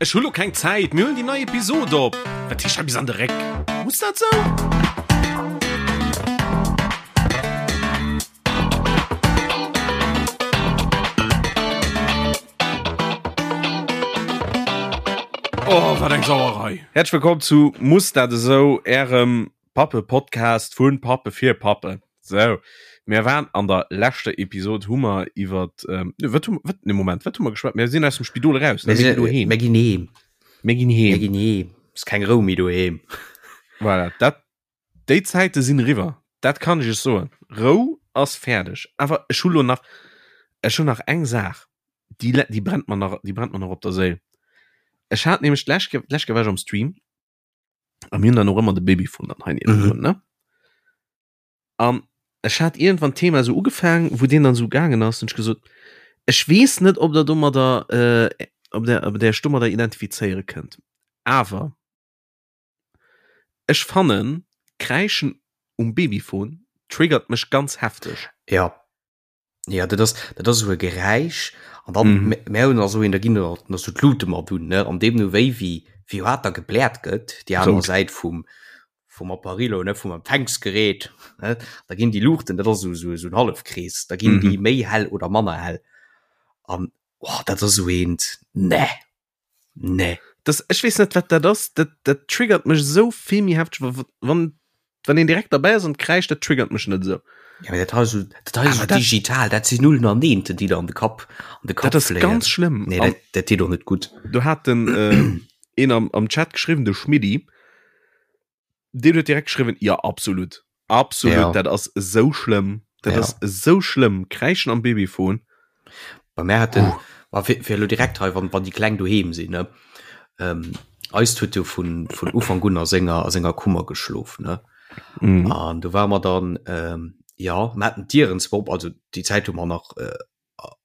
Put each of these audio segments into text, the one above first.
Ech hu lo keng Zäit, mir huelen déi nei Episod op. Wat heescht hei bis an de Réck? Muss dat sou? Oh, wat eng Sauerei! Häerzlech wëllkomm zu Muss dat esou, ärem Pappe-Podcast vun Pappe fir Pappen. Sou, mir waren an der leschter Episod hu mer iwwer ähm, wat hu wat ne Moment, wat hu mer geschwat? Mir sinn aus dem Spidol eraus, ne? Mir Mir ginn doheem. Mir ginn heem. Mir ginn heem. Mir ginn heem. Ist keng Rou méi doheem. Voilà, dat déi Zäite sinn eriwwer. Dat kann ech iech soen. Rou ass fäerdeg. Awer ech hu lo nach ech hunn nach eng Saach, déi déi brennt mer nach déi brennt mer nach op der Séil. Ech hat nämlech d'lescht Kéier d'lescht Kéier war ech am Stream a mir hunn dann och ëmmer de Babyfon dann hei niewendrun, mhm. ne? An ech hat iergendwann d'Thema esou ugefaang, wou deen dann esou gaangen ass, hunn ech gesot, ech weess net, ob der domadder, äh, ob der, ob der iech domadder identifizéiere kënnt, awer ech fannen, Kräischen um Babyphone triggert mech ganz hefteg. Ja. Ja, dat ass, dat ass esou e Geräisch an dann mm. mär hunn also een, da ginn nach so d'Lute mat un, ne? An deemno wéi wéi wéi haart da gebläert gëtt, déi aner Säit vum vum Apparillo, ne, vum Empfängsgerät, ne? Da ginn déi Luuchten, dat ass esou esou esou en Hallefkrees, da ginn mm -hmm. déi méi hell oder manner hell. An oh, dat ass esou eent, ne. Nee. Das, ech wees net wat dat ass, dat, dat triggert mech esou vill méi hefteg, wann, wann een direkt derbäi ass an kräischt, dat triggert mech net esou. Ja, dat hei so, dat hei so digital, dat sinn Nullen an Eenten, déi der an de Kapp, an de Kapp Dat ass ganz schlëmm. Nee, dat, dat deet och net gutt. Do hat den äh, een am, am Chat geschriwwen, de Schmiddi, Deen huet direkt geschriwwen, ja absolut. Absolut, ja. dat ass esou schlëmm. Dat ja. ass esou schlëmm. Kräischen am Babyfon. Bei mir hat den, uh. fir, fir lo direkt hei, wann, wann déi Kleng doheem sinn, ne? Ähm, eist huet jo vun, vun Ufank un a senger, a senger Kummer geschlof, ne? Mhm. An du war mer dann, ähm, ja, mer haten d'Dieren zwar op, also déi Zäit hu mer nach äh,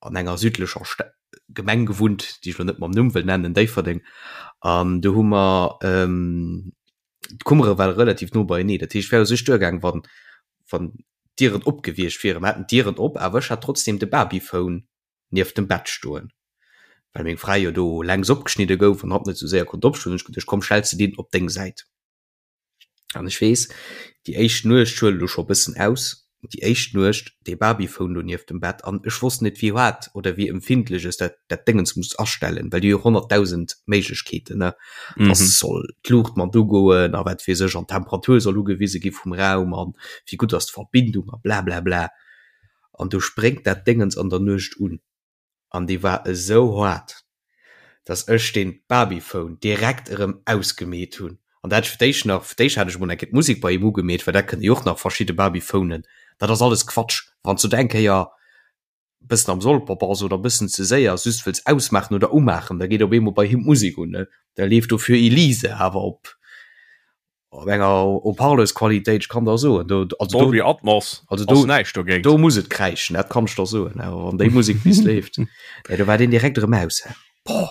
an enger südlecher Sta Gemeng gewunnt, déi ech lo net mam Numm wëll nennen, Déifferdeng. An do hu mer ähm, d'Kummere ware relativ no beienee. Dat heescht, wär u sech duergaang, wann, wann d'Dieren op gewiescht wieren. Mer haten d'Dieren op, awer ech hat trotzdem de Babyphone nieft dem Bett stoen, well meng Fra jo do längs opgeschnidde gouf an hatt net sou séier konnt opstoen. Hunn ech geduecht, komm, stells de deen op deng Säit. An ech weess, déi éischt Nuecht, ech huelen elo scho e bëssen aus, déi éischt Nuecht, dee Babyphone do nieft dem Bett an ech wosst net wéi haart oder wéi empfindlech ech dat dat Déngens muss astellen, well déi hu jo 100.000 Méiglechkeeten, ne, dass soll d'Luucht mat ugoen a wat weess ech an d'Temperatur soll ugewise gi vum Raum an wéi gutt ass d'Verbindung a blablabla. An du spréngt dat Déngens an der Nuecht un. an déi war esou haart, dass ech deen Babyphone direkt erëm ausgemeet hunn. An dat fir d'éischt nach, fir d'éischt hat ech emol eng Kéier d'Musek bei him ugemeet, well dat kënne jo och nach verschidde Babyphonen. Dat ass alles Quatsch, wann s du et eng Kéier bëssen am Solper bass oder bëssen ze séier just wëlls ausmaachen oder umaachen, da geet op eemol bei him d'Musek un, ne? Da leeft do Für Elise awer op Op enger Haut-Parleuse-Qualitéit, ech kann der soen, do, also Dolby do, Atmos, also do, näischt dogéint. Do muss et kräischen, dat kann ech der soen, awer wann déi Musek bis leeft, nee, do war deen direkt erëm aus. Boah.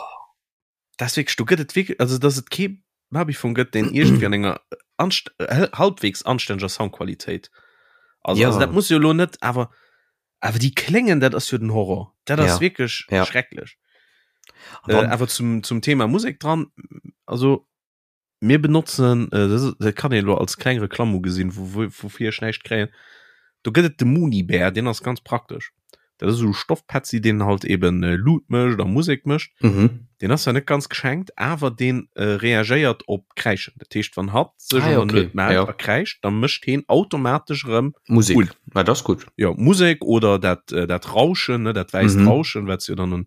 Dat ass wierklech, do gëtt et wierklech, also dass et kee Babyfon gëtt, deen iergendwéi an enger anst halbwegs anstänneger Soundqualitéit ass. Ja. Also dat muss jo elo net, awer awer déi kléngen, dat ass jo den Horror. Dat ass ja. wierklech ja. schrecklech. Äh, awer zum, zum Thema Musek dran, also Mir benotzen, dat kann een elo als kleng Reklamm ugesinn, woufir ech näischt kréien, do gëtt et de Mooney-Bear, deen ass ganz praktesch. Dat ass esou e Stoffpetzi, deen halt eben Luut mécht a Musek mécht. Deen ass zwar net ganz geschenkt, awer dee reagéiert op Kräischen. Dat heescht, wann hatt sech an der Nuet mellt a kräischt, da mécht heen automatesch erëm Musek un. Dat ass gutt. Jo, Musek oder dat Rauschen, ne, dat wäisst Rauschen, wat se jo dann un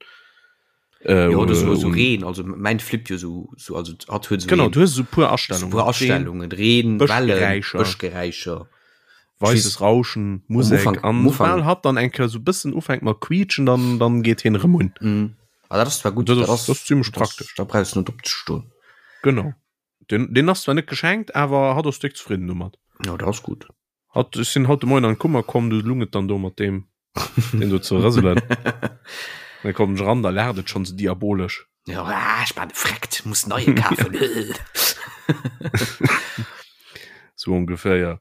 Äh, ja, oder so, so Reen also mein Flip jo so, so also hat huet so genau du hast so puer Astellungen so puer Astellungen Reen Bëschgeräischer weißes Rauschen Musik an Ufang, hat dann enke so bëssen ufänkt mat quietschen dann dann geht hin rem un mm. ah, dat war gut das, das, das, das ziemlich praktisch da brauchst du net opzestoen genau den den hast zwar net geschenkt awer hat ass dick zufrieden domat ja das gut Hat, ech sinn haut de Moien an d'Kummer komm, du lung et dann do mat deem, deen do ze rëselen. Da komm ech eran, da laacht et schonn sou diabolesch. Ja, ah, ech war defrekt, muss neie kafen. Sou ongeféier.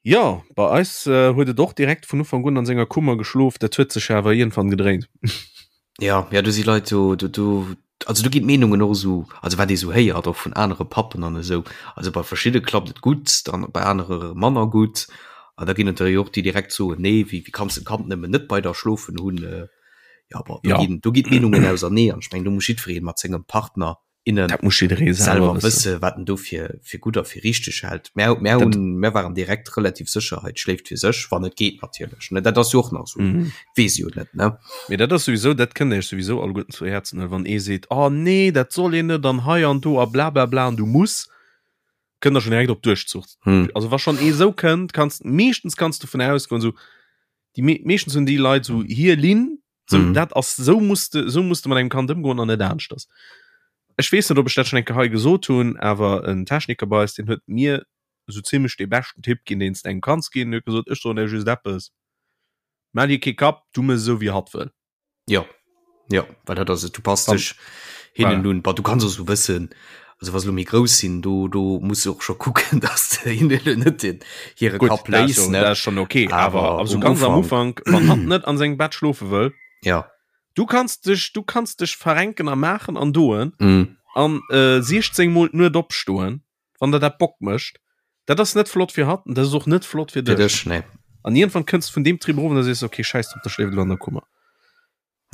Jo, bei eis huet et och direkt vun Ufank un an senger Kummer geschlof, dat huet sech awer iergendwann gedréint. Ja, ja, do si Leit, do, do, do. Also do ginn d'Meenungen och esou, also wat ee sou héiert och vun anere Pappen an esou, also bei verschidde klappt et gutt, dann bei anere manner gutt. An da ginn et der jo och, déi direkt soen, nee, wéi wéi kanns de d'Kand nëmmen net bei der schlofen hunn. Jo, bon, do ginn do ginn d'Meenungen ausernee an ech mengen, do muss jiddweree mat sengem Partner, innen Dat muss jidderee selwer wësse wat en do fir fir gutt a fir richteg hält. Mär mär hunn mär waren direkt relativ sécher, hei schléift fir sech, wann et geet natierlech ne, dat ass jo och nach esou, Mhm. weess jo net ne. Mee dat ass souwisou, dat kënnt Iech souwisou alleguerten zu Häerzen huelen, wann ee seet, oh nee, dat soll een net an hei an do a blablabla an du muss, kënnt der schonn direkt op Duerchzuch. Hm. Also wa schonn ee sou kënnt, kanns meeschtens kanns du vun ausgoen, sou déi me meeschtens hunn déi Leit sou hir Linn, So, Mhm. dat ass so musst de, so musst de mat engem Kand ëmgoen an net aneschters. Ech weess net, ob ech dat schon eng Kéier hei gesot hunn, awer en Techniker bei eis, deen huet mir sou zimmlech dee beschten Tipp ginn, deen s de engem kanns ginn. En huet gesot, ech soen der just eppes, Maach dir kee Kapp, du mëss esou wéi hatt wëll. Jo, jo, well dat ass et, du passt Dann- dech hinnen Voilà. un. Bah, du kanns och sou wëssen, also wa se lo méi grouss sinn, do, do muss du och scho kucken, dass de hinnen elo net den hire Gutt, Kapp dat ass léis, jo, ne? dat ass schon okay, awer Awer also um ganz am Ufank, Ufank, wann hatt net an sengem Bett schlofe wëll, ja. du kanns dech, du kanns dech verrenken a maachen an doen Mm. an äh, 16 mol d'Nuet opstoen, wann der dat Bock mécht. Dat ass net flott fir hatt an dat ass och net flott fir Fir dech. dech, nee. An iergendwann kënns du vun deem Trip erof an da sees du, okay, schäiss drop, da schléift elo an der Kummer.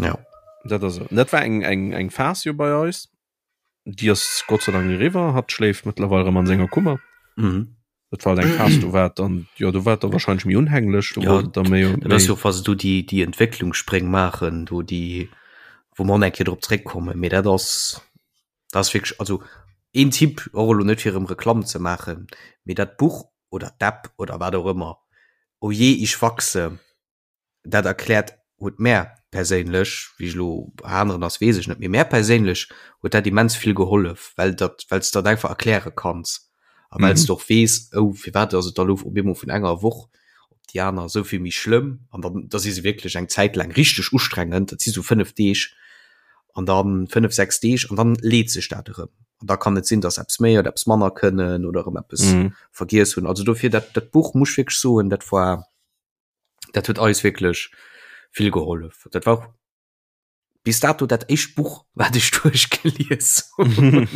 Ja. Dat ass esou. Dat war eng, eng, eng Phas jo bei eis. Déi ass Gott sei Dank eriwwer. Hatt schléift mëttlerweil erëm an senger Kummer. Mhm. Dat war halt eng Phas, do war et dann, jo, do war et da wahrscheinlech méi unhänglech, do Ja, wollt et da méi, dat ass méi jo och, wa se do déi, déi Entwécklungsspréng maachen, do déi, wou mer och nach eng Kéier drop zréckkommen, mee dat ass, dat ass wierklech, also een Tipp, och elo net fir erëm Reklamm ze maachen, mee dat Buch oder d'App oder wat och ëmmer, Oh je, ich wachse, dat erkläert huet mär perséinlech, wéi ech elo bei aneren ass weess ech net, mee mär perséinlech huet dat immens vill gehollef, well dat well s de dat einfach erkläre kanns a well s Mhm. de och weess, oh firwat ass et da elo op eemol vun enger Woch op déi aner esou vill méi schlëmm an dann da si se wierklech eng Zäit laang richteg ustrengend, dat si sou 5 Deeg an dann 5, 6 Deeg an dann leet sech dat erëm an da kann et sinn, datt eppes méi oder eppes manner kënnen oder erëm eppes Mhm. vergiess hunn. Also dofir dat dat Buch muss ech wierklech soen, dat war dat huet eis wierklech vill gehollef. Dat war och bis dato dat éischt Buch, wat ech duerchgelies hunn.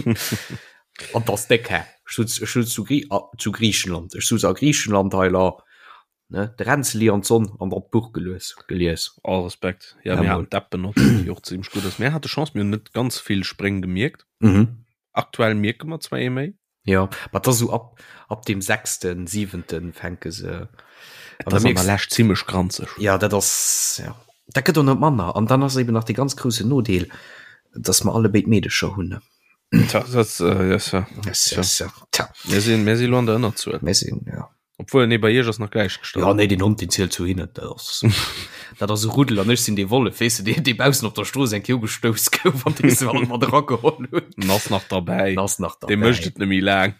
An dat ass déck, hä? Ech sutz, ech sutz zu, Grie a, zu Griichenland. Ech sutz a Griichenland hei la, ne, de Ränzeli an d'Sonn an dann d'Buch gelues, gelies. All Respekt. Ja, Ja, mir mol. haten d'App benotzt, déi och zimmlech gutt ass. Mir hate Chance, mir hunn net ganz vill Spréng gemierkt. Mhm. Aktuell mierke mer zwar ee méi. Jo, ma et ass esou ab, ab dem sechsten, siwenten fänke se. Et ass an der Lescht zimmlech granzeg. Ja, dat ass, ja, dat gëtt och net manner. An dann ass eben nach dee ganz groussen Nodeel, dass mer allebéid Meedecher hunn. Tja, dat, äh, yes, ja. Yes, yes, ja. Tja. Mir sinn, mir si lo an der Ënnerzuel. Mir sinn, ja. Obwuel, nee, bei iech ass nach gläichgestallt. Ja, nee, den Hond, deen zielt zu hinnen. Dat ass, dat ass e Ruddel an ech sinn dee Wollef, weess de, deen, dee baussen op der Strooss eng Kéier ugestouss gouf an dee se alt mat erageholl hunn. En ass nach derbäi. En ass nach derbäi. Dee mécht et net méi laang.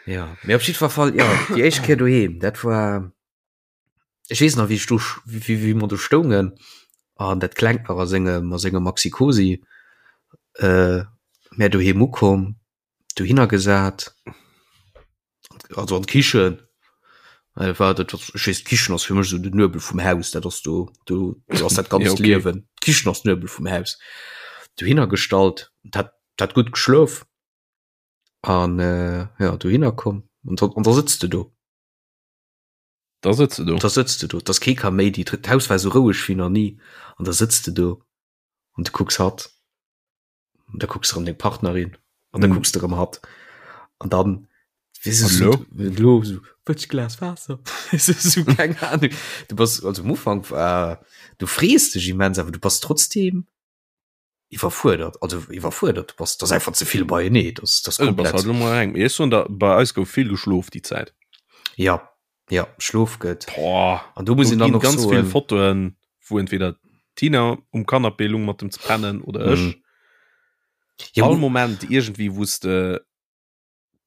Ja, mee op jiddwer Fall, ja, déi éischt Kéier doheem, dat war, ech weess nach, wéi ech do, wéi, wéi mer do stoungen an dat Klengt nach a sengem, a sengem Maxi-Cosi, äh, mär doheem ukomm, dohinner gesat also an d'Kichen äh, war dat ech weess d'Kichen ass fir mech sou den Nuebel vum Haus dat ass do do do ass dat ganzt Ja, okay. Liewen d'Kichen ass Nuebel vum Haus dohinner gestallt dat dat gutt geschlof an äh, ja dohinner komm an da, an da sëtzt de do Da sëtzt de do. da sëtzt de do dass kee Kaméidi d'Haus war sou roueg wéi nach ni an da sëtzt de do an du kucks hatt Und da kucks du erëm deng Partnerin an da Mhm. kucks du erëm hatt an dann weess du, An so, lo? lo so, wëlls du Glas Waasser? so, so, keng Ahnung. Du bass also am Ufank war du frees dech immens, awer du bass trotzdem iwwerfuerdert, also iwwerfuerdert, du bass, das ass einfach ze vill beienee, das, das Du bass komplett. halt lo mol eng. Mee ech soen der, bei eis gouf vill geschlof déi Zäit. Ja, ja, Schlof gëtt. Boah. An do muss Do een dann ginn och ganz vill soen, Fotoen, wou entweder d'Tina um Canapé lung mat dem ze pennen oder ech. Mhm. Ja, All wo- Moment irgendwie wou s de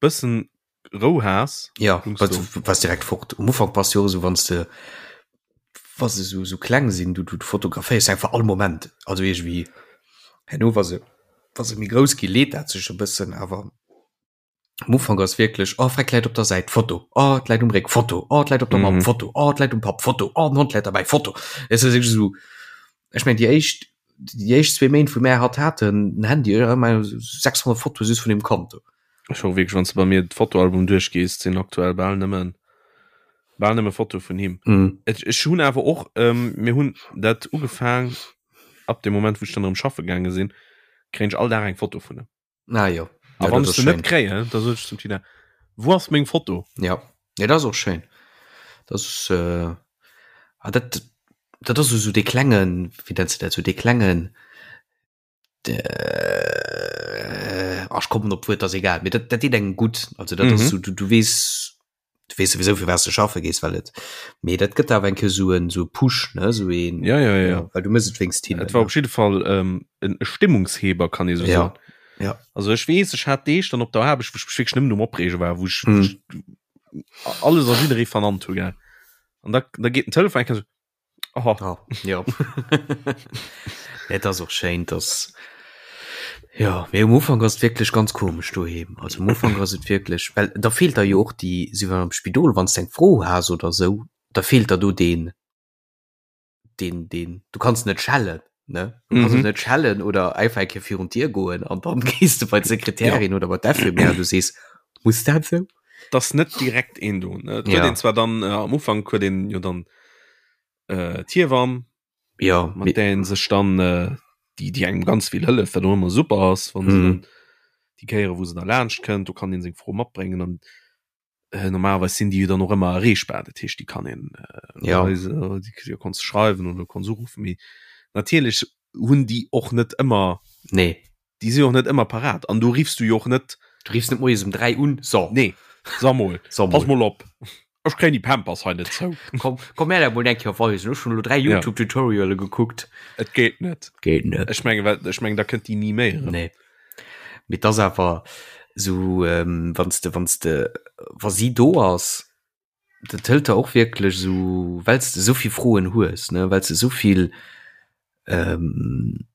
bëssen Rou has. Ja, lungs was, du. was direkt fort. Um Ufank bass du jo esou, wann s de wa se sou, sou kleng sinn, du, du fotograféiers einfach all Moment. Also irgendwie herno wa se, wa se méi grouss gi leet dat sech e bëssen, awer am Ufank ass wierklech, oh freck läit op der Säit, Foto, oh et läit um Réck, Foto, oh et läit op der Mamm, Mhm. Foto, oh et läit um Papp, Foto, oh den Hond läit derbäi, Foto. Et ass wierklech esou, ech mengen déi éischt. déi éischt zwee Méint wou mär hatt haten, den Handy, ech hat ëmmer 600 Fotoe just vun deem Kand do. Ech hu wierklech, wann s de bei mir d'Fotoalbum duerchgees, sinn aktuell bal nëmmen bal nëmme Fotoe vun him. Mm. Ech, ech hunn awer och, ähm, mir hunn dat ugefaang ab dem Moment wou ech dann erëm schaffe gaange sinn, kréien ech all Dag eng Foto vun him. Ah jo. A Ja, wann dat ech ass se net schéin. kréien, da sot ech zum Tina, Wou ass meng Foto? Ja, ja dat ass och schéin. Dat ass äh, ah, dat, dat ass esou dee klengen, wéi nenns de dat, sou dee klengen, äh, ach, ech kommen op d'Wuert, ass egal, mee dat, dat deet engem gutt. Also dat ass Mhm. sou, du, du weess, du weess souwisou fir wat s de schaffe gees, well et, mee dat gëtt awer eng Kéier sou en, sou e Push, ne, sou een, Ja, ja, ja. ja, well du mëss et wéinst hinnen, Et war ne. op jidde Fall ähm, en Stimmungsheber, kann ee sou Ja, soen. ja. Also ech weess, ech hat Deeg dann op der Aarbecht, wou ech mech wierklech nëmmen um Opreege war, wou ech, wou Mhm. ech alles a jidderee vernannt hu, gell. An da, da geet den Telefon eng Kéier sou, Oh. Oh, ja. Et ass och schéin, dass ja, mee um Ufank ass et wierklech ganz komesch doheem. Also um Ufank ass et wierklech, well da feelt der jo och déi, sou wéi am Spidol, wann s de eng Fro has oder sou, da feelt der do deen, deen, deen, du kanns net schellen, ne? Du kanns Mhm. och net schellen oder einfach eng Kéier virun d'Dier goen an dann gees de bei d'Sekretärin oder bei d'Infirmière an du sees, muss dat sou? Dass net direkt een do, ne? Et huet Ja. een zwar dann äh, am Ufank huet een jo dann äh, d'Hiewamm, Ja, mat där een sech dann äh, déi, déi engem ganz vill hëlleft, wat och ëmmer super ass, wann se Mhm. dann déi Kéiere wou se da laanscht kënnt, do kann een seng Fro matbréngen an äh, normalerweis sinn déi jo dann och ëmmer erreechbar, dat heescht déi kann een äh, Ja. weise, déi déi kanns du schreiwen oder kanns uruffen, mee natierlech hunn déi och net ëmmer, Nee. déi sinn och net ëmmer parat an do riffs du jo och net, Du riffs net moies um 3 un, so. nee, sag mol, So pass mol. mol op, ech kréien déi Pampers hei net zou. Komm, komm mir dat mol eng Kéier weisen. Ech hunn elo 3 Ja. YouTube-Tutoriale gekuckt. Et geet net. Geet net. Ech menge well ech meng da kënnt déi ni méi erëm. Nee. Mee et ass awer sou, ähm, wann s de, wann s de, wa si do ass, dat hëlt der och wierklech sou, well s de esou vill Froen hues, ne, well s de esou vill, ähm,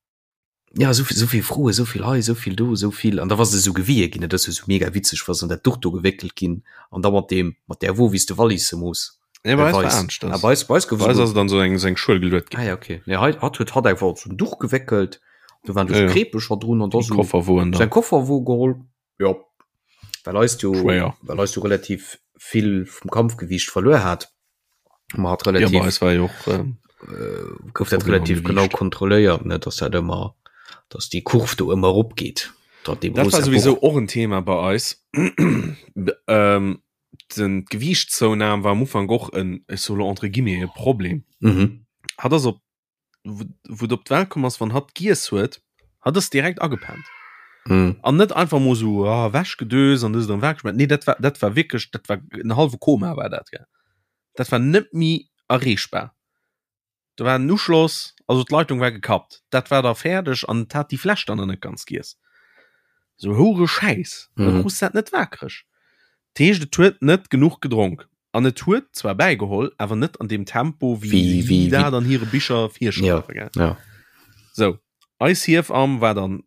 ja esou vill, esou vill Froen, esou vill hei, esou vill do, esou vill, an da wa se esou gewie ginn, dat ass jo esou mega witzeg, wa se an dat Duch do gewéckelt ginn an da mat deem, mat där Wo, wéi s de Wallisse muss. Nee, bei eis war anescht. Ah, bei eis, bei eis gouf Bei eis ass et an esou eng, esou eng Schuel geluet ginn. Ah ja, okay. Nee, hei, hatt huet hatt einfach op esou en Duch geweckelt, do waren do Ja, sou ja. Kreepecher drun an da Déi sou Kofferwoen säin da. Kofferwo geholl. Jo, well eist jo, Schwéier. well eist jo relativ vill vum Kampfgewiicht verluer hat. Ma hat Ja, relativ bei eis war jo och, ähm, äh, gouf dat Problem am relativ genau Gewiicht. kontrolléiert, ne, dass dat ëmmer, dass déi Kurv do ëmmer erop geet. Dat deem Dat war rosa souwisou Buch. och en Thema bei eis. ähm, den d'Gewiichtszounahm war am Ufank och en, ech soe lo entre guillemets, e Problem. Mhm. Hatt ass op, wou et op d'Welt komm ass, wann hatt giess huet, hatt ass direkt agepennt. Mhm. An net einfach mol sou ah, ewechgedöst an dëst an dat gemaach. Nee, dat war, dat war wierklech, dat war en hallwe Koma war dat, gell. Dat war net méi erreechbar. Do war en Uschloss, also d'Leitung war gekappt. Dat war da fäerdeg an et hat déi Fläsch dann nach net ganz giess. Sou houre Schäiss, da Mhm. krus dat net waakreg. Dat heescht, et huet net genuch gedronk. An et huet zwar bäigeholl, awer net an deem Tempo, wéi Wéi, si wéi, wéi. dat an hire Bicher Ja, virschreiwen, gell. ja. Sou, eis Hiefamm war dann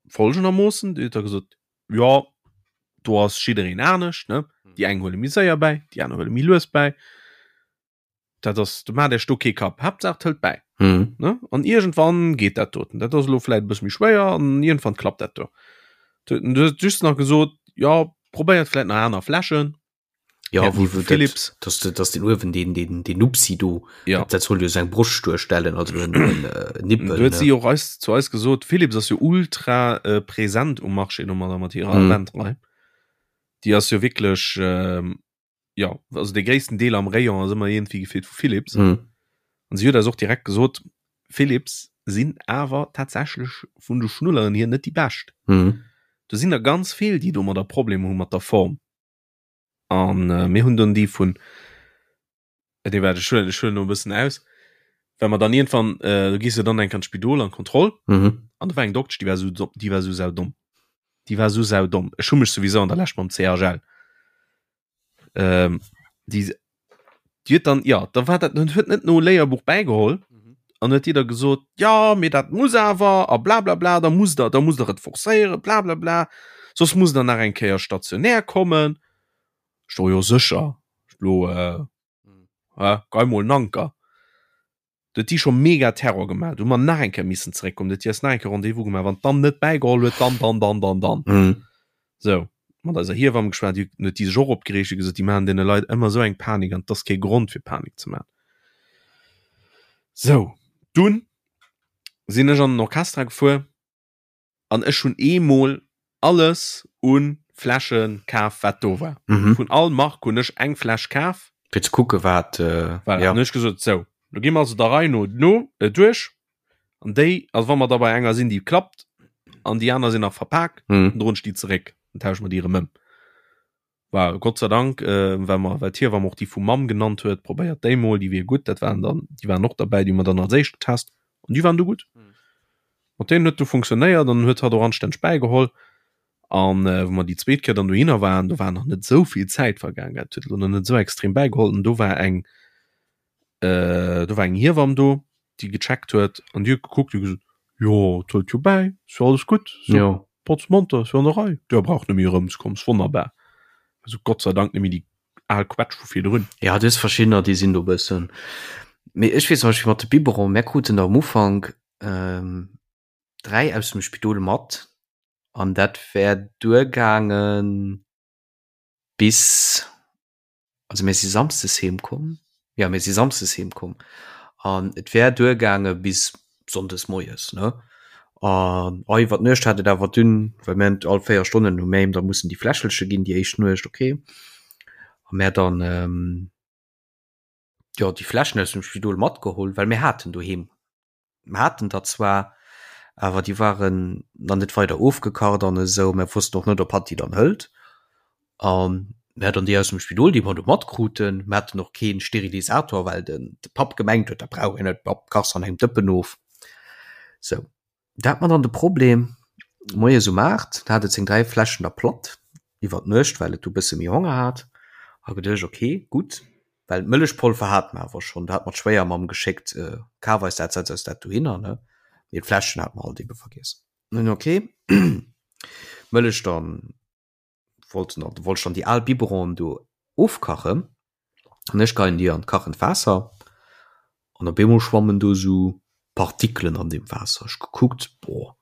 folgendermoossen, déi huet da gesot, jo, do ass jiddereen anescht, ne? Déi eng huele méi séier bäi, déi aner huele méi lues bäi. Dat ass, du maacht Iech do kee Kapp, Haaptsaach et hëlt bäi. Mhm. Ne? An iergendwann geet dat doten. Dat ass elo vläit e bësse méi schwéier an iergendwann klappt dat do. Du du hues just nach gesot, jo, probéiert vläit nach aner Fläschen. Ja, Hätten wo, déi wo vu Philips. Dat, dass, de, dass den Uewen den, den, den Nupsi do, Ja. dat, dat soll jo seng Broscht duerstellen, also en, en äh, Nippel. Du huet ne? si och eis, zu eis gesot, Philips ass jo ultra äh, präsent um Marché domadder mat hirer Mhm. Avent-Rei. Déi ass jo wierklech, ähm, ja, also de gréissten Deel am Rayon ass ëmmer iergendwéi gefillt vu Philips. Mhm. An si huet eis och direkt gesot, Philips sinn awer tatsächlech vun de Schnulleren hier net déi bescht. Mhm. Do sinn der ganz vill, déi domadder Problemer hu mat der Form. An äh, mir hunn dann déi vun, äh, nee, warte, ech huelen, ech huelen no e bëssen aus, well mer dann iergendwann, äh, du gees jo dann eng an d'Spidol an d'Kontroll, Mhm. an do war eng Doktsch, déi war sou, déi war sou saudomm. Déi war sou saudomm. Ech hu mech souwisou an der Lescht mam CHL. Ähm, déi, déi huet dann, ja, da war dat, huet net no Léierbuch bäigeholl an huet déi da gesot, ja, mee dat muss awer a bla bla bla, da musst der, da musst der et forcéieren, bla bla bla, soss musst der nach eng Kéier stationär kommen. Ech so, jo sécher, lo, äh, äh, gei mol en Anker. Do huet déi scho mega Terror gemaach. Do hu mer nach eng Kéier missen zeréckkommen. Do huet déi eis nach eng Kéier Rendez-vous gemaach. Wann d'dan net bäigeholl huet, dann, dann, dann, dann, dann. Mhm. Sou, mat eiser Hiewamm geschwat, déi huet déi sech och opgereegt, huet gesot, déi maachen deene Leit ëmmer esou eng Panik an et ass kee Grond fir Panik ze maachen. Sou, dunn sinn ech an den Orchestra gefuer an ech hunn eemol alles u Fläsche kaf, wat do war. Mhm. Vun all Mark hunn ech eng Fläsch kaf. Fir ze kucke wat, Voilà, ja. An hu ech gesot, sou, lo gi mer also der Rei no no duerch an déi, also wa mer da bei enger sinn, déi klappt an déi aner sinn nach verpak, Mhm. dann droen ech déi zeréck, dann tausche mer déi erëm ëm. War Gott sei Dank, äh, well mer, well d'Hiewamm och déi vu Mamm genannt huet, probéiert déi mol, déi wier gutt. Dat waren dann, déi waren och derbäi, déi hu mer dann als éischt getest an déi waren du gutt. Mhm. Mat deenen huet du funktionéiert an huet hatt och anstänneg bäigeholl. An äh, wou mer déi zweet Kéier dann dohinner waren, do war nach net esou vill Zäit vergaang, dat huet elo nach net esou extrem bäigeholl. An do war eng, äh, do war eng Hiewamm do, déi gecheckt huet an déi huet gekuckt, déi huet gesot, jo, et hëlt jo bäi, ass jo alles gutt, so Jo. potz monter, ass jo an der Rei, der braucht net méi erëmzekommen, ass wonnerbar. Also Gott sei Dank net méi déi al Quetsch vu virdrun. Ja, du hues verschiddener, déi sinn do e bëssen. Mee ech weess zum Beispill mat de Biberon, mär kruten der am Ufank ähm, 3 aus dem Spidol mat an dat wär duergaange bis also mir si samsdes heem komm, jo mir si samsdes heem komm an et wär duergaange bis sonndes moies ne an oh iwwer d'Nuecht hat et awer dunn, well mir hunn all 4 Stonnen hu mir him da mussen déi Fläschelche ginn déi éischt Nuecht okay a mir dann jo déi Fläschen aus dem Spidol matgeholl, well mir haten doheem Mer haten der zwar, awer déi waren nach net weider ofgekacht an esou. Mer wossten och net, ob hatt déi dann hëlt. A mer dann déi aus dem Spidol, déi mer do matkruten. Mer haten och kee Sterilisator, well den de Papp gemengt huet, dat brauch een net, Papp, kachs an engem Dëppen of. Sou, da hat mer dann de Problem, moies um 8 hat et seng 3 Fläschen da platt iwwer d'Nuecht, well et du bësse méi Honger hat. Ha geduecht, okay, gutt, Well d'Mëllechpolver hate mer awer schonn, do hat mer d'Schwéiermamm geschéckt, kaf eis dat, setz eis dat dohinner, ne? Mee d'Fläschen hate mer halt ebe vergiess. Nun ok, Mëllech dann wollt dann wollt ech dann déi al Biberonen do ofkachen an ech geien déi an d'kachend Waasser an op eemol schwammen do esou Partikelen an deem Waasser. Ech gekuckt, boah,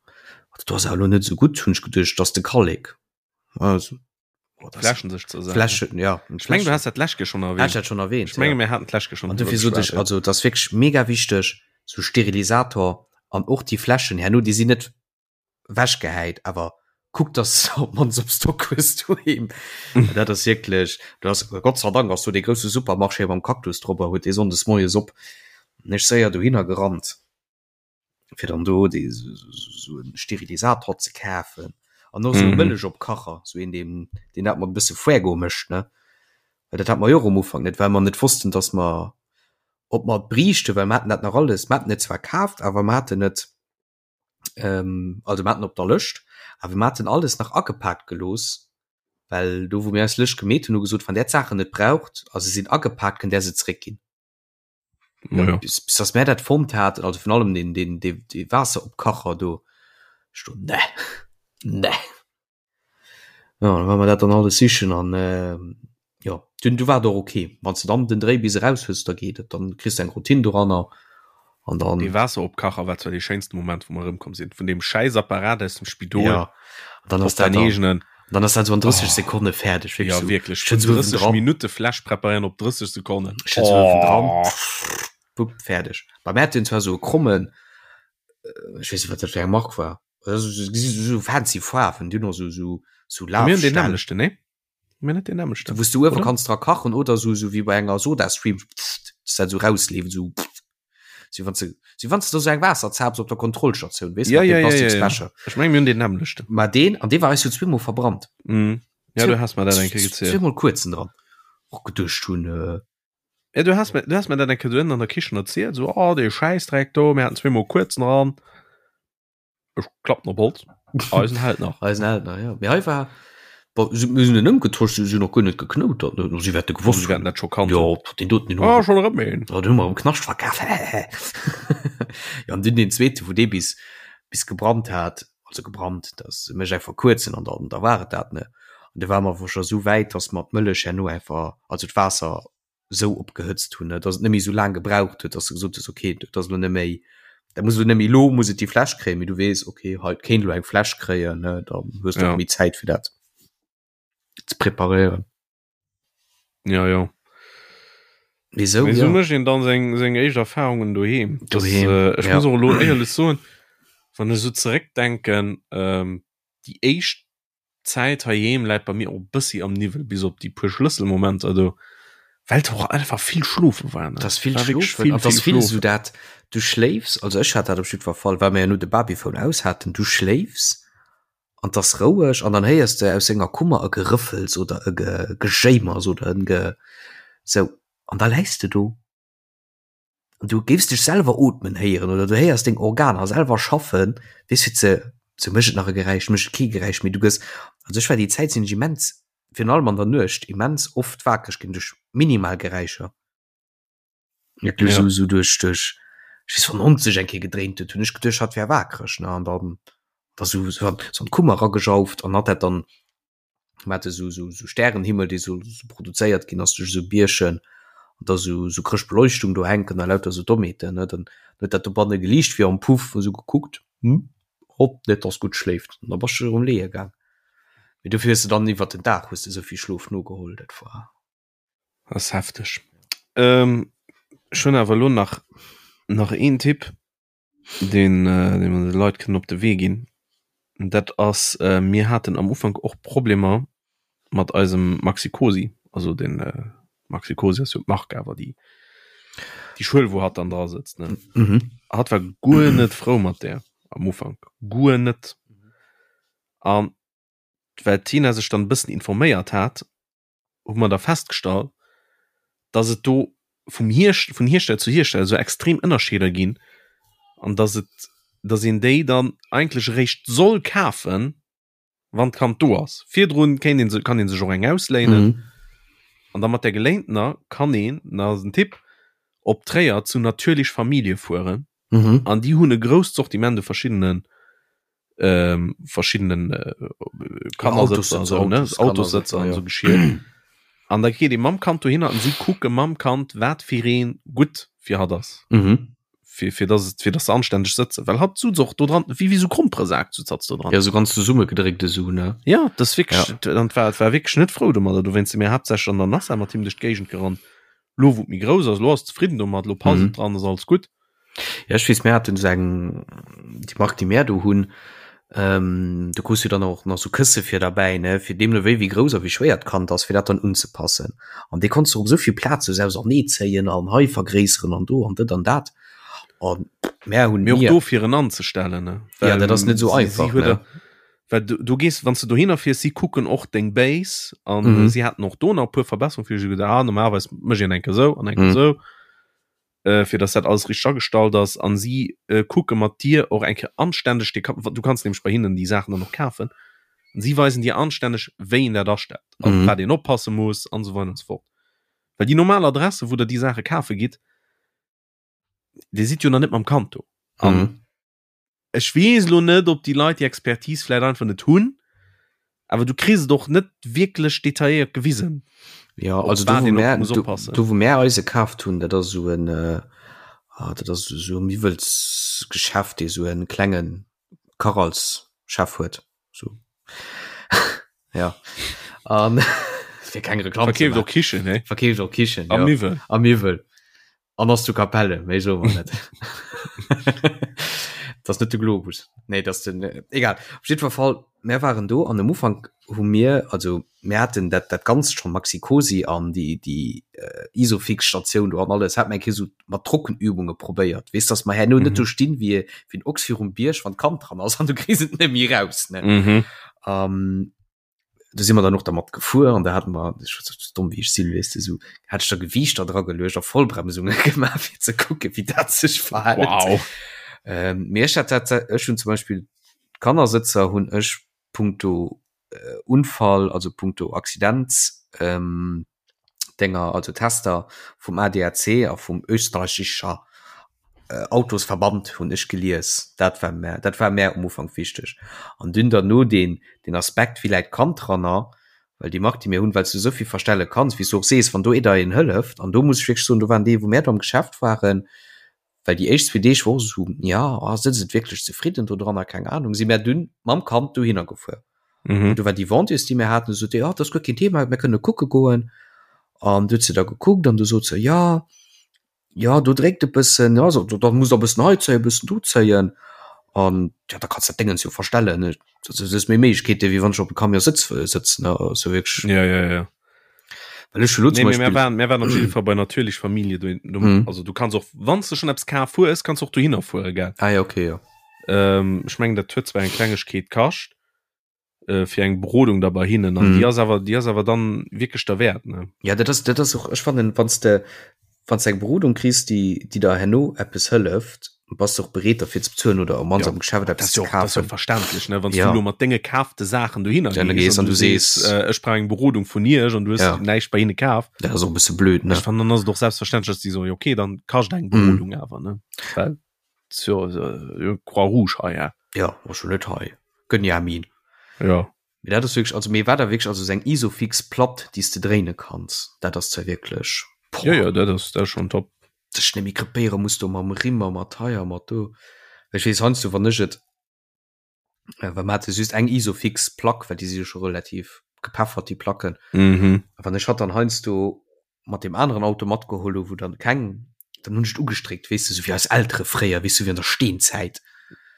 dat do ass awer elo net esou gutt, hunn ech geduecht, dat ass de Kallek. Also Oh, das Fläschen sech ze sagen. Fläschen, ja. Ich meng, du hast dat Läschke schon erwähnt. dat schon erwähnt. Ich menge, ja. mir hatten d'Läschke schon. An dofir sot ech, also das ass wierklech mega wichteg, so Sterilisator an och déi Fläschen herno, déi sinn net wechgehäit, awer kuck, dass de op d'mannst op Stock hues doheem. Dat ass wierklech, du ass, Gott sei Dank ass do dee grousse Supermarché mam Cactus drop a huet dee sonndes moies op. Ech séier dohinner gerannt. fir dann do dee sou en Sterilisator ze kafen an och sou e Mëllechopkacher, sou een deen deen dat mat e bësse Fuego mécht ne, well dat hat mer jo och am Ufank net, well mer net wossten, datt mer ob mer et briichten, well mer haten dat nach alles, mer haten et zwar kaaft, awer mer haten et also mer haten op der Lëscht, awer mer haten alles nach agepaakt gelooss, well do wou mir eis Lëscht gemeet hunn, hu gesot, wann där d'Saachen net braucht a se sinn agepaakt, kënnt där se zeréckginn. Ja. Bis, bis dass mär dat fonnt haten, also vun allem den, den, den, de Waasseropkacher do, ech do, ne, ne. Ja, dann war mer dat dann alles sichen an äh, ja, du, du war et och okay. Wann du dann den Dréi bis eraus hues, da geet et, dann kriss du eng Routine doranner an dann. Dee Waasseropkacher war zwar dee schéinste Moment, wou mer erëmkomm sinn, vun deem schäiss Apparat aus dem Spidol. Ja, an dann ass op dat dein eegenen. Dann ass dat so an 30 oh. Sekonne fäerdeg. Ja, so, wirklich. Vun 30 Minute Fläsch preparéieren op 30 Sekonnen. Oh. Dran. Bupp, fäerdeg. Bei mir hat den zwar so e krommen, äh, ich weiß nicht, wat dat fir eng Mark war. So, so, so fancy Faarwen, du noch so, so, so Mir hunn den nämlechten, ne? Mir net den nämlechten. Wous du uewe kanns dra kachen oder so, so wéi bei enger Sodastream, dass dat so rausleeft, so. Si wann se si wann du so eng Waasser zaps op der Kontrollstatioun weess ja, ja, ja, ja, ja. Ech meng mir hunn den nämmlechten. Ma deen an dee war eis jo zweemol verbrannt. Mm. Ja, du has mer dat eng Kéier gezielt. Zweemol kuerzen dran. Och geduecht hunn äh, Ja, du has mir, du has mir dat eng Kéier dohin an der Kichen erzielt, so oh, dee Schäissdreck do, mir haten zweemol kuerzen dran. Ech klappen op Holz. Eisen hält nach. Eisen hält nach, ja. Mee hei war, bon, si, mir sinn en ëmgetosch, si sinn och guer net geknoutert, ne? Si wäerte gewosst Si wäerten dat scho kannt Jo, deen doten, deen hu Ah, schonn erëm een. Ja, den hu mer am Knascht verkaf. Ja, an dunn deen zweete, wou dee bis, bis gebrannt hat, also gebrannt, dat mécht einfach kuerzen an dann, da war et dat, ne? An du ware mer awer scho sou wäit, dass mer d'Mëllech herno einfach, also d'Waasser. Sou opgehëtzt hunn, dass et net méi sou laang gebraucht huet, dass de gesot hues, okay, dat ass elo net méi, dat muss elo net méi, elo muss et déi Fläsch kréien, mee du weess, okay, hei et kéint elo eng Fläsch kréien, ne, dann hues de och méi Zäit fir dat ze preparéieren. Ja, jo. Mee sou, Mee sou mécht een dann seng, seng éischt Erfahrungen doheem. Doheem, ja. Ech muss och elo éierlech soen, wann ech sou zeréckdenken, déi éischt D'Zäit heiheem läit bei mir och bëssi am Niwwel, bis op déi puer Schlësselmomenter do, well et och einfach vill schlofe war, ne? Et ass vill schlofen, et ass vill esou dat, du schléifs, also ech hat dat op jiddwer Fall, well mer jo no de Babyphone aus haten, du schléifs an 't ass roueg an dann héiers de aus senger Kummer e Gerëffels oder e Gejéimers oder en Ge sou an da läis de do. An du géifs dech selwer ootmen héieren oder du héiers deng Organer selwer schaffen, weess fir ze sou mécht et nach e Geräisch, mécht et kee Geräisch méi. Du gëss, also ech war déi Zäit sinn ech immens, virun allem an der Nuecht, immens oft wakereg ginn duerch minimal Geräischer. Wierklech sou sou duerch duerch, ech weess wann en Hond sech eng Kéier gedréint huet, hunn ech geduecht hatt wär wakereg ne an dann da sou sou an d'Kummer eragejauft an hatt dat dann Mir hate sou sou sou Stärenhimmel, dee sou sou produzéiert ginn ass duerch esou Bierchen an da sou sou Chrëschtbeleuchtung do hänken a lauter sou Dommheeten, ne. Dann huet dat dobanne geliicht wéi am Puff, hu sou gekuckt, hm, hopp, net dass gutt schléift. An da bass du erëm leeë gaang. Mee dofir hues de dann iwwert den Dag hues de esou vill Schlof nogeholl, dat war. Ass hefteg. Ech hunn awer elo nach nach een Tipp. deen äh, deen mer de Leit kënnen op de Wee ginn. Dat ass äh, mir haten am Ufank och Problemer mat eisem Maxi Cosi, also den äh, Maxi Cosi ass jo d'Mark awer déi déi Schuel wou hatt dann dra sëtzt ne. Mhm. Hatt war guer net frou mat där am Ufank, guer net. An well d'Tina sech dann e bëssen informéiert hat, hu mer da festgestallt, dass et do vum Hierst vun Hiersteller zu Hiersteller esou extrem Ënnerscheeder ginn an dass et dass een déi dann eigentlech eréischt soll kafen, wann d'Kand do ass. Virdrun kéint een se kann ee sech och eng ausléinen Mhm. an da mat där geléintener kann een, dat ass en Tipp, op Tréier zu Natürlich Familie fueren Mhm. an déi hunn e grousst Sortiment u verschiddenen ähm, verschiedenen äh, Kannersëtzer, so, ne? Autossëtzer an so Geschirr. An da geet ee mam Kand dohinner an si kucke mam Kand, wat fir een gutt fir hatt ass. Mhm. Fir, fir dass et, fir dass se anstänneg sëtzen. Well hatt sutz och do dran, wéi, wéi so Gromperesak sutz hatt do dran. Ja, so ganz zesummegedréckt esou, ne? Ja, das wierklech, ja. An war, war wierklech net frou domadder. Dowéinst si mir haaptsächlech an der Nassa mat him duerch d'Géigend gerannt. Lo wou et méi grouss ass, lo ass zefridden domat, lo passt et dran, ass alles gutt. Ja ech weess mir haten esou eng déi Mark déi mär do hunn, ähm, do krus du dann och nach sou Kësse fir derbäi ne fir deemno wéi wéi grouss a wéi schwéier d'Kand ass fir dat dann unzepassen. An dee konns du op esou vill Plaze sou auserneezéien an hei vergréisseren an do an dët an dat. An mär hunn Mee och do fir en anzestellen ne. Ja dat ass net esou einfach ne. Well du, du gees wann s du dohinner fiers, si kucken och deng Base an Mhm. si haten och do nach e puer Verbesserungen fir gedacht, ah, normalerweis mécht een eng Kéier esou an eng Kéier Mhm. esou. äh, fir dass dat alles richtig agestallt ass an si äh, kucke mat dir och eng Kéier anständeg de du kannst nämlech bei hinnen déi Saachen dann och kafen an si weisen dir anständeg wéi een dat astellt an Mhm. wat een oppasse muss an esou weider an esou fort. Well déi normal Adresse wou der déi Saache kafe gitt, dir sidd jo nach net mam Kand do. An Mhm. Ech weess elo net, ob déi Leit déi Expertise vläit einfach net hunn, awer du kriss et och net wierklech detailléiert gewisen. Ja, also do, wou mär, do, do wou mär eise kaaft hunn, dat ass esou en, ah, dat ass esou e Miwwelsgeschäft, dee esou e klenge Kach als Chef huet. So. ja. An fir keng Reklamm ze Verkeeft maachen. och Kichen, he? Verkeeft och Kichen, A ja. Miwwel. A Miwwel. An ass zu Capelle, méi soe mer net. Dat ass net de Globus. Nee, dat ass den, egal. Op jiddwer Fall, mär waren do an am Ufank hu mir, also mär haten dat, dat Ganzt scho Maxi-Cosi an déi, déi Isofix-Statioun do an alles, hat mer eng Kéier esou mat Trockenübunge probéiert, weess, dass mer herno net do stinn wéi, wéi en Ochs virum Bierg, wann d'Kand dran ass an du kriss et net méi raus, ne. Mhm. Um, do si mer dann och dermat gefuer an da haten mer, ech war sou domm wéi ech sinn, weess de, sou hat ech da Gewiichter dra geluecht a Vollbremsunge gemaach fir ze kucke wéi dat sech verhält. Wow. Ähm, mee ech hat dat, ech hunn zum Beispill d'Kannersëtzer hunn ech punkto äh, Unfall, also punkto Accident, ähm, Dénger, also Tester vum ADAC a vum österreichischer Autosverband hunn ech gelies. Dat war mär, dat war mär um Ufank wichteg. An dunn derno deen, deen Aspekt, wéi läit d'Kand dranner? Well déi Mark, déi mir hunn, well s du esou vill verstelle kanns, wéi s du och sees, wann do ee der een hëlleft, an do muss ech wierklech soen, do waren déi, wou mär do am Geschäft waren, well déi éischt zwee Deeg wor och esou, ja, ah, sinn se wierklech zefridden do dran a keng Ahnung, si mär dunn mam Kand dohinner gefuer. Mhm. Do war déi Vendeuse, déi mir haten, sot déi, ah, dat ass guer keen Thema, mir kënne kucke goen. An du huet se da gekuckt an du sot se, ja, ja do dréckt e bëssen, ja so, da muss der e bëssen hei zéien, e bëssen do zéien an ja da kanns dat Déngens jo verstellen, ne? Dat ass méi Méiglechkeete wéi wann ech op e Camion sëtz sëtzen, ne? Also wierklech. Ja, ja, ja. Well ech hu lo zum Nee, mee mir waren, mir waren op jidde Fall bei Natürlich Familie do, do mhm. also du kanns och wann du schon eppes kaf hues, kanns och dohinner fuere gell. Ah ja, okay, ja. Ähm, ech mengen dat huet zwar eng Klengegkeet kascht, äh, fir eng Berodung da bei hinnen an mhm. die ass awer die ass awer dann wirklich der Wert ne ja dat ass dat ass och ech fannen wanns de wanns eng Berodung kriss die die der herno eppes hëlleft bass du och bereet derfir ze bezuelen oder am ja, am Geschäft eppes ze kafen verständlech ne wann ja. du mat denge kaafte Saachen dohinner ja, gees an du sees äh, ech brauch eng Berodung vun iech an du hues ja. näischt bei hinne kaf dat ass och e bësse blöd ne ech fannen dann ass et och selbstverständlech dass die so okay dann kascht eng Berodung mhm. awer ne well Jo, äh, Croix Rouge hei, ja. Ja, war schon net hei. Gönn ja min. Ja. Mee dat ass wierklech, also mee war da wierklech also seng Isofix Platt, déi s de dréine kanns, dat ass zwar wierklech, boah. Ja, ja, dat ass, dat ass schon top. Dech net méi krepéiere muss do mam Rimm a mat hei a mat do. Ech weess heiansdo, wann ech et Well mer hate just eng Isofix Plack, well déi si jo scho relativ gepeffert déi Placken. Mhm. A wann ech hatt dann heiansdo mat deem aneren Auto matgeholl hu wou dann keng, dann hunn ech et ugestréckt, weess de, sou wéi eis Eltere fréier, weess du, wéi an der Steenzäit.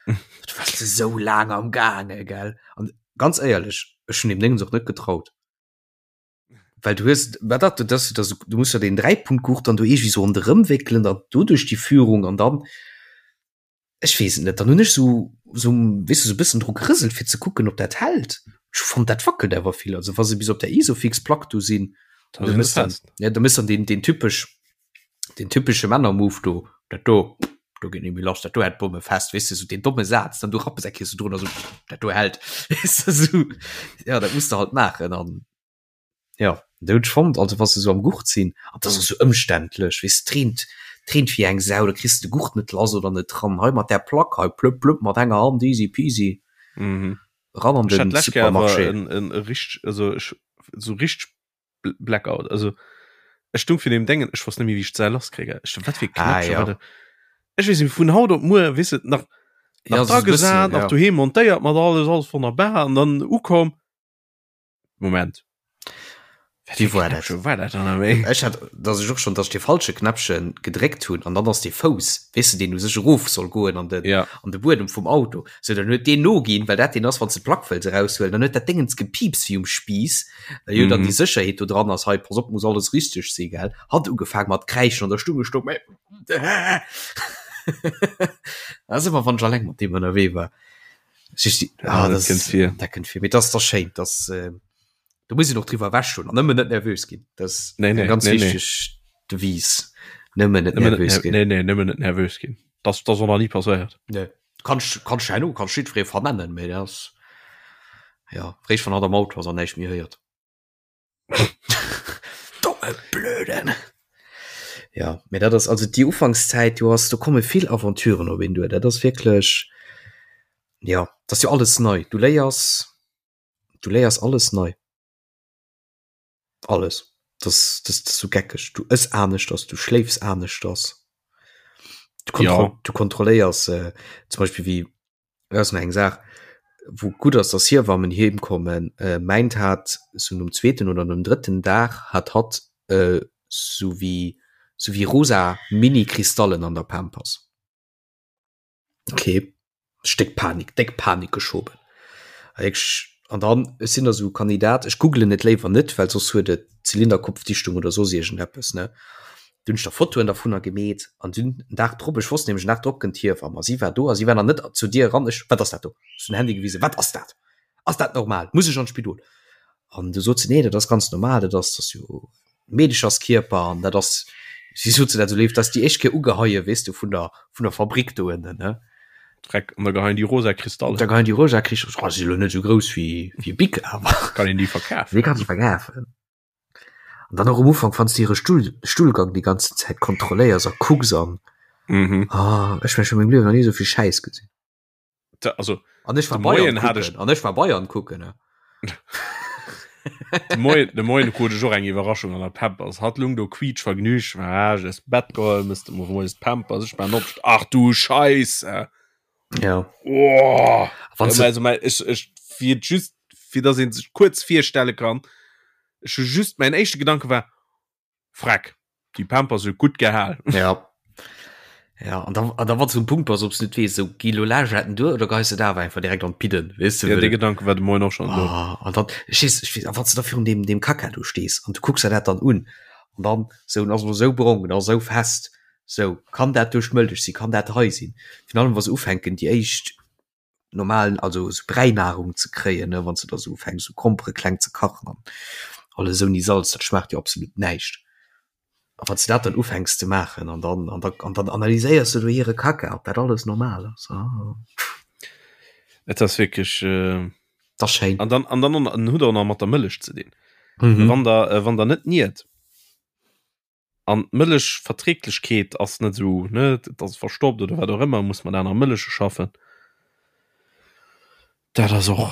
Du waars de sou laang am gaange, gell? An ganz éierlech, ech hunn deem Déngens och net getraut. Well du hues, wat dat, dat, dat, du muss jo deen Dräipunktgurt dann do iergendwéi sou ronderëm wéckelen, dann doduerch déi Führung an dann, Ech weess et net, dann hunn ech sou sou weess de sou bëssen dru gerëselt fir ze kucken ob dat hält. Ech hu fonnt dat wackelt awer vill, also wa se bis op der Isofix Plack do sinn, Da sinn se fest. Ja da méchs dann deen deen typesch deen typesche Männermove do, dat do do geet net méi lass, dat do hält d'Bomme fest, weess de sou deen domme Saz, dann du rappes eng Kéier sou drun a sou dat do hält, weess de sou. Ja dat muss de halt maachen an. Ja dat hunn ech fonnt, also wa se sou am Gurt sinn, an dat ass och sou ëmständlech, weess de, d'reent, d'reent wéi eng Sau, da kriss de de Gurt net lass oder net dran, hei mat där Plack hei, plëpp plëpp mat enger Hand, easy peasy, Mhm. ran an Ech den hat d'lescht Kéier awer Supermarché. en, en e richteg, also ech, sou richteg Blackout, also ech stung virun deem Déngen, ech wosst net méi wéi ech d'Säil lasskréien, ech sou, wat fir e Ah Knäppche ja. war dat? Ech weess net, vun haut op muer, weess de, nach, Ja, nach sou dra e bëssen, gesat, nach ja. doheem montéiert mat alles, alles wonnerbar an dann ukomm, Moment. Wie war dat? War dat dann méi? Ech hat dass ech och schon dass de falsche Knäppchen gedréckt hunn an dann ass de Fouss weess de deen u sech erof soll goen an den ja. an de Buedem vum Auto sou dann huet deen noginn well dat deen ass wann s de d'Plack wëlls eraushuelen dann huet dat Déngens gepiipst wéi um Spiiss well jo dann déi Sécherheet do dran ass hei pass op muss alles richteg si gell hat ugefaang mat kräischen an der Stung gestoung mä dat ass ëmmer wann ech alleng mat deem ënnerwee war. Ah, dat kënnt vir. Dat kënnt vir. Mee dat ass da schéin, dass äh, do muss een och driwwer ewech hunn an nëmmen net nervös ginn. Dat ass nee, nee, ganz nee, wichteg nee. Devise. Nëmmen net nervös ginn. Nee, nee, nëmmen net nervös ginn. Das, das ass nach nie passéiert. Nee. Kannst, kannst herno, kannst jiddweree vernennen, mee dat ass ja, réischt wann hatt am Auto ass an näischt méi héiert. Domme Blöden. Ja, mee dat ass also déi Ufankszäit, du hast, do komme vill Aventuren op een duer. Dat ass wierklech, ja, dat ass jo alles nei. Du léiers, du léiers alles nei. Alles. Dat ass, dat ass sou geckeg. Du ëss aneschters, du schléifs aneschters. Du kontro ja. du kontrolléiers äh, zum Beispiel wéi Dat ass nach eng Saach, wou gutt ass, dass Hiewammen heem kommen. Mäint hat sou nom zweeten oder nom drëtten Dag hat hatt sou wéi sou wéi rosa Mini-Kristallen an der Pampers. Ok, Stéck Panik, déck Panik geschoben. An dann, ech sinn da sou Kandidat, ech googelen et léiwer net, well soss huet et Zylinderkopfdichtung oder soss iergendeppes, ne. Dunn hunn ech da Fotoen dervunner gemeet an dunn en Dag drop, ech wosst nämlech en Dag drop kënnt d'Hiewamm a si war do a si war nach net zur Dier eran, ech, wat ass dat do? Ech hunn den Handy gewisen, wat ass dat? Ass dat normal? Muss ech an d'Spidol? An du sot se, nee, dat ass ganz normal, dat ass, dat ass jo Meedecherskierper an dat ass, si sot se dat esou léif, dat ass déi éischt Kéier ugeheie, weess de, vun der, vun der Fabrik do ënnen, ne. Dreck, an da geheien déi rosa Kristaller. Da geheien déi rosa Kristaller, si lo net esou grouss wéi, wéi e Bic, awer. Kann een déi verkafen? Déi kanns de verkafen. An dann och um Ufank, wann s de hire Stull, Stullgang déi ganzen Zäit kontrolléiers a kucks an. Mhm. Ah, ech mengen, ech hu mengem Liewen nach ni esou vill Schäiss gesinn. Da, also, An ech war de Bayern Moien hat ech. kucken, an ech war Bayern kucken, ne. De Moien, de Moien krut ech och eng Iwwerraschung an der Pampers. Hatt lung do quietsch vergnügt, war ech aus dem Bett geholl, mësst de moies d'Pampers, ech maan op, ach du Scheisse! Ja. Oh, Wann ja, also, mein, ech, ech, fir just, fir dass een sech kuerz virstelle kann, ech hu just, mein éischte Gedanke war, Freck, déi Pampers huet gutt gehal. Ja. Ja, an da, an da wann du um Punkt bass, ob du net weess, so gi lo Lagetten duer oder geis du da awer einfach direkt an d'Pidden, weess du? Ja, dee Gedanke war de Moien och schon do. Ah, an dann, ech weess, ech weess, a wann du da virun deem, deem Kacka do stees an du kucks der dat dann un an dann sou, en ass elo sou brong, en ass sou fest, sou, kann dat duerch d'Mëllech sinn, kann dat hei sinn? Virun allem wa se ufänken déi éischt normalen, also sou Bräinahrung ze kréien, ne, wann s de da sou ufänks sou Grompere kleng ze kachen an alles ouni Salz, dat schmaacht jo absolut näischt. A wann s de dat dann ufänks ze maachen an dann an da an dann analyséiers de do hire Kacka, ob dat alles normal ass, ah. Et ass wierklech. Dat ass schéin. An dann an dann an huet och nach mat der Mëllech ze dinn. Mhm. Wann der wann der net niert. An d'Mëllechverträglechkeet ass net esou, ne, et ass verstoppt oder wat och ëmmer, muss mat aner Mëlleche schaffen. Dat ass och,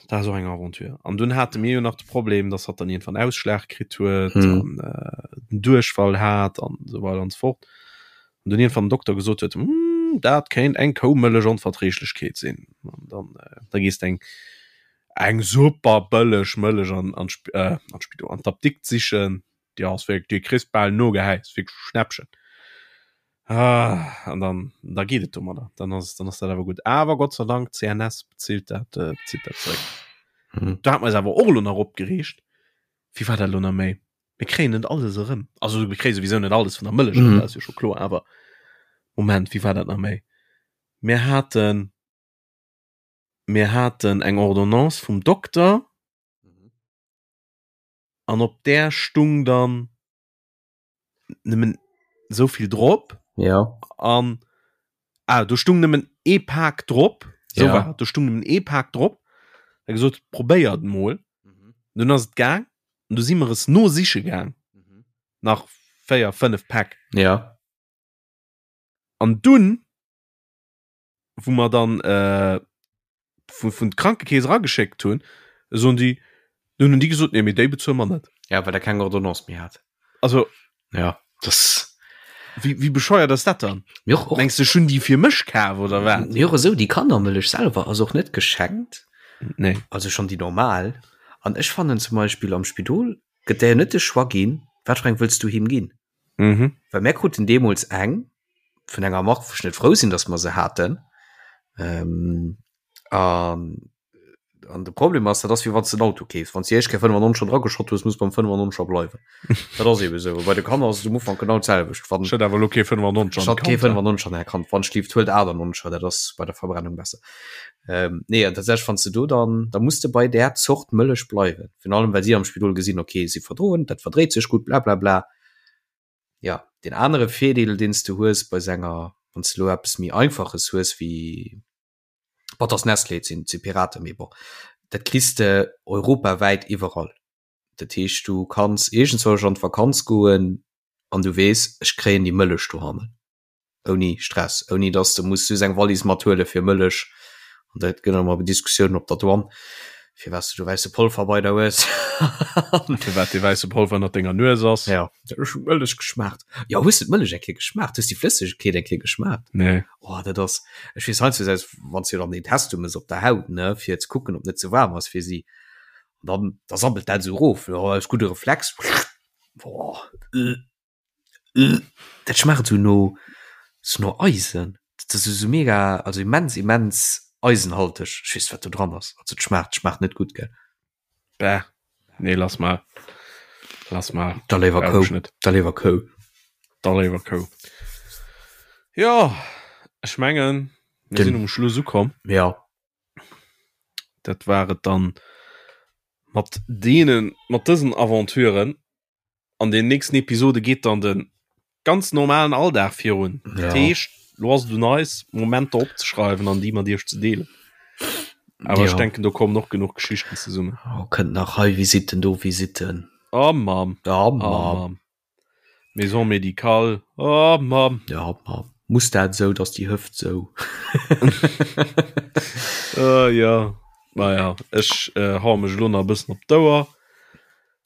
dat ass och eng Aventure. An dunn hate mir jo nach de Problem, dass hatt dann iergendwann Ausschlag kritt huet mhm. an äh, den Duerchfall hat an esou weider an esou fort. An dunn iergendwann den Dokter gesot huet, hm, dat kéint eng Koumëllechonverträglechkeet sinn. An dann, äh, da gees de eng eng super bëlleg Mëllech an, an, äh, an d'Spidol, an d'Apdikt sichen. Déi ass wierklech, déi kriss bal nogehäit, ass wierklech e Schnäppchen. Ah, an dann, da geet et domadder, dann ass, dann ass dat awer gutt. Awer Gott sei Dank, CNS bezilt dat, äh, bezilt dat zeréck. Mhm. Da hat mer eis awer och elo nach opgereegt. Wéi war dat elo nach méi? Mir kréien net alles erëm. Also mir kréie souwisou net alles vun der Mëllech, mhm. dat ass jo scho kloer, awer Moment, wéi war dat nach méi? Mir haten, mir haten eng Ordonnance vum Dokter. Mhm. an op där stung dann nëmmen souvill drop ja an ah, do stung nëmmen ee Pak drop so ja. war do stung nëmmen ee Pak drop er gesot probéiert mol mhm. dunn ass et gaang an du si mer es no siche gaang mhm. nach 4 5 Päck ja an dunn wou mer dann äh, vun, vun d'Krankekeess erageschéckt hunn, soen déi, dunn hunn déi gesot, nee, mee déi bezuele mer net. Ja, well der keng Ordonnance méi hat. Also ja, das wéi, wéi bescheuert ass dat dann? Mir och, och. Mengs du, ech hunn déi fir mech kaf oder wat? Mir och esou, déi Kannermëllech selwer ass och net geschenkt. Nee. Also schonn déi normal. An ech fannen zum Beispill am Spidol gëtt der jo net de Choix ginn, wat fir eng wëlls du him ginn. Mhm. Well mär kruten deemools eng vun enger Mark, wou ech net frou sinn, datt mer se haten. Ähm, an, an de Problem ass, dat ass wéi wann s de en Auto keefs. Wann s de déi éischt Kéier 95er drageschott hues, muss beim 95er bleiwen. Dat ass ebe sou. Bei de Kanner ass et um Ufank genau d'selwecht. Wann Schëtt awer elo kee 95 an Schëtt kee 95 an Är Kand. Wann schlieft, huelt 98er, dat ass bei der Verbrennung besser. Ähm, nee, an tatsächlech, wann s de do dann, da muss de bei där Zort Mëllech bleiwen. Virun allem, well si am Spidol gesinn, okay, si verdroen, dat verdréit sech gutt, blablabla. Ja, deen anere Virdeel, deen s de hues bei senger, wann s de elo eppes méi Einfaches hues wéi, bon, 't ass Nestlé, et sinn, et si Piraten, mee bon, dat kriss de europawäit iwwerall. Dat heescht, du kanns iergendzwousch an d'Vakanz goen an du weess, ech kréien déi Mëllech dohannen. ouni Stress, ouni dass de muss just eng Wallis mathuele fir Mëllech an dat gëtt ëmmer Diskussiounen op der Douane, firwat s du do wäisse Polver bei der hues. Firwat dee wäisse Polver ënnert denger Nues ass. Ja, ech hu Mëllech geschmaacht. Jo, hues du d'Mëllech eng Kéier geschmaacht? Hues déi Flëssegkeet eng Kéier geschmaacht? Nee. Oh, dat ass, ech weess heiansdo aus, wann s du dann deen Test du mëss op der Haut, ne, fir ze kucken, ob net ze waarm ass fir si, an dann, da sabbelt dat esou erof, jo, aus gudde Reflex, boah, äh. Dat schmaacht sou no sou no Eisen. Dat ass sou mega also immens immens eisenhalteg. Ech weess wat do dran ass. Also et schmaacht schmaacht net gutt gell. Bäh, nee lass mal. Lass mal. Da léiwer Kou. Da léiwer Kou. Da léiwer Kou. Jo, ech mengen mir sinn um Schluss ukomm. Ja. Dat war et dann mat deenen mat dësen Aventuren. An den nächsten Episode geet dann den ganz normalen Alldag virun. Ja. Dat heescht, lo ass et un eis, Momenter opzeschreiwen an déi mat iech ze deelen. Awer ja. ech denken, do kommen och genuch Geschichten zesummen. Oh, kënnt nach hei Visitten, do Visitten. Oh Mamm. Oh Mamm. Oh, Mamm. Maison médicale. Oh Mamm. Ja, Mamm. Muss dat sou, dass déi Hëft sou. uh, ja. Naja, ech äh, hau mech lo nach e bëssen op d'Ouer.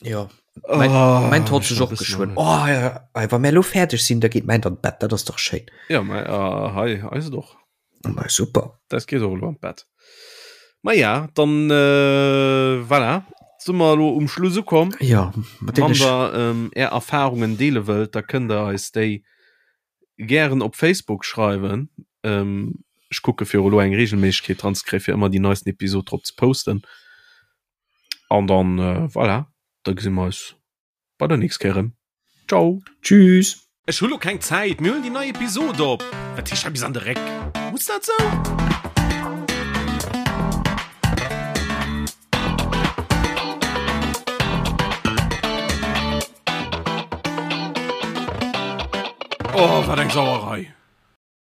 Ja. Mein, oh, mein Tod sech och geschwënn. Oh, ja, wa mir lo fäerdeg sinn, da geet mäin an d'Bett, dat ass doch schéin. Ja, mei, uh, hei eis et och. Ma super. Dat geet och elo an d'Bett. Ma ja, dann äh, voilà. Si mer elo um Schluss ukomm. Ja, mat Wann der ähm, är Erfahrungen deele wëllt, da kënnt der eis déi gären op Facebook schreiwen. Ähm, ech kucke fir elo eng Regelméissegkeet dran ze kréien, fir ëmmer déi neisten Episod drop ze posten. An dann äh, voilà, da gesi mer eis bei der nächst Kéier erëm. Ciao. Tschüss. Ech hu lo keng Zäit, mir huelen déi nei Episod op. Wat heescht hei bis an de Réck? Muss dat sou? Oh, wat eng Sauerei!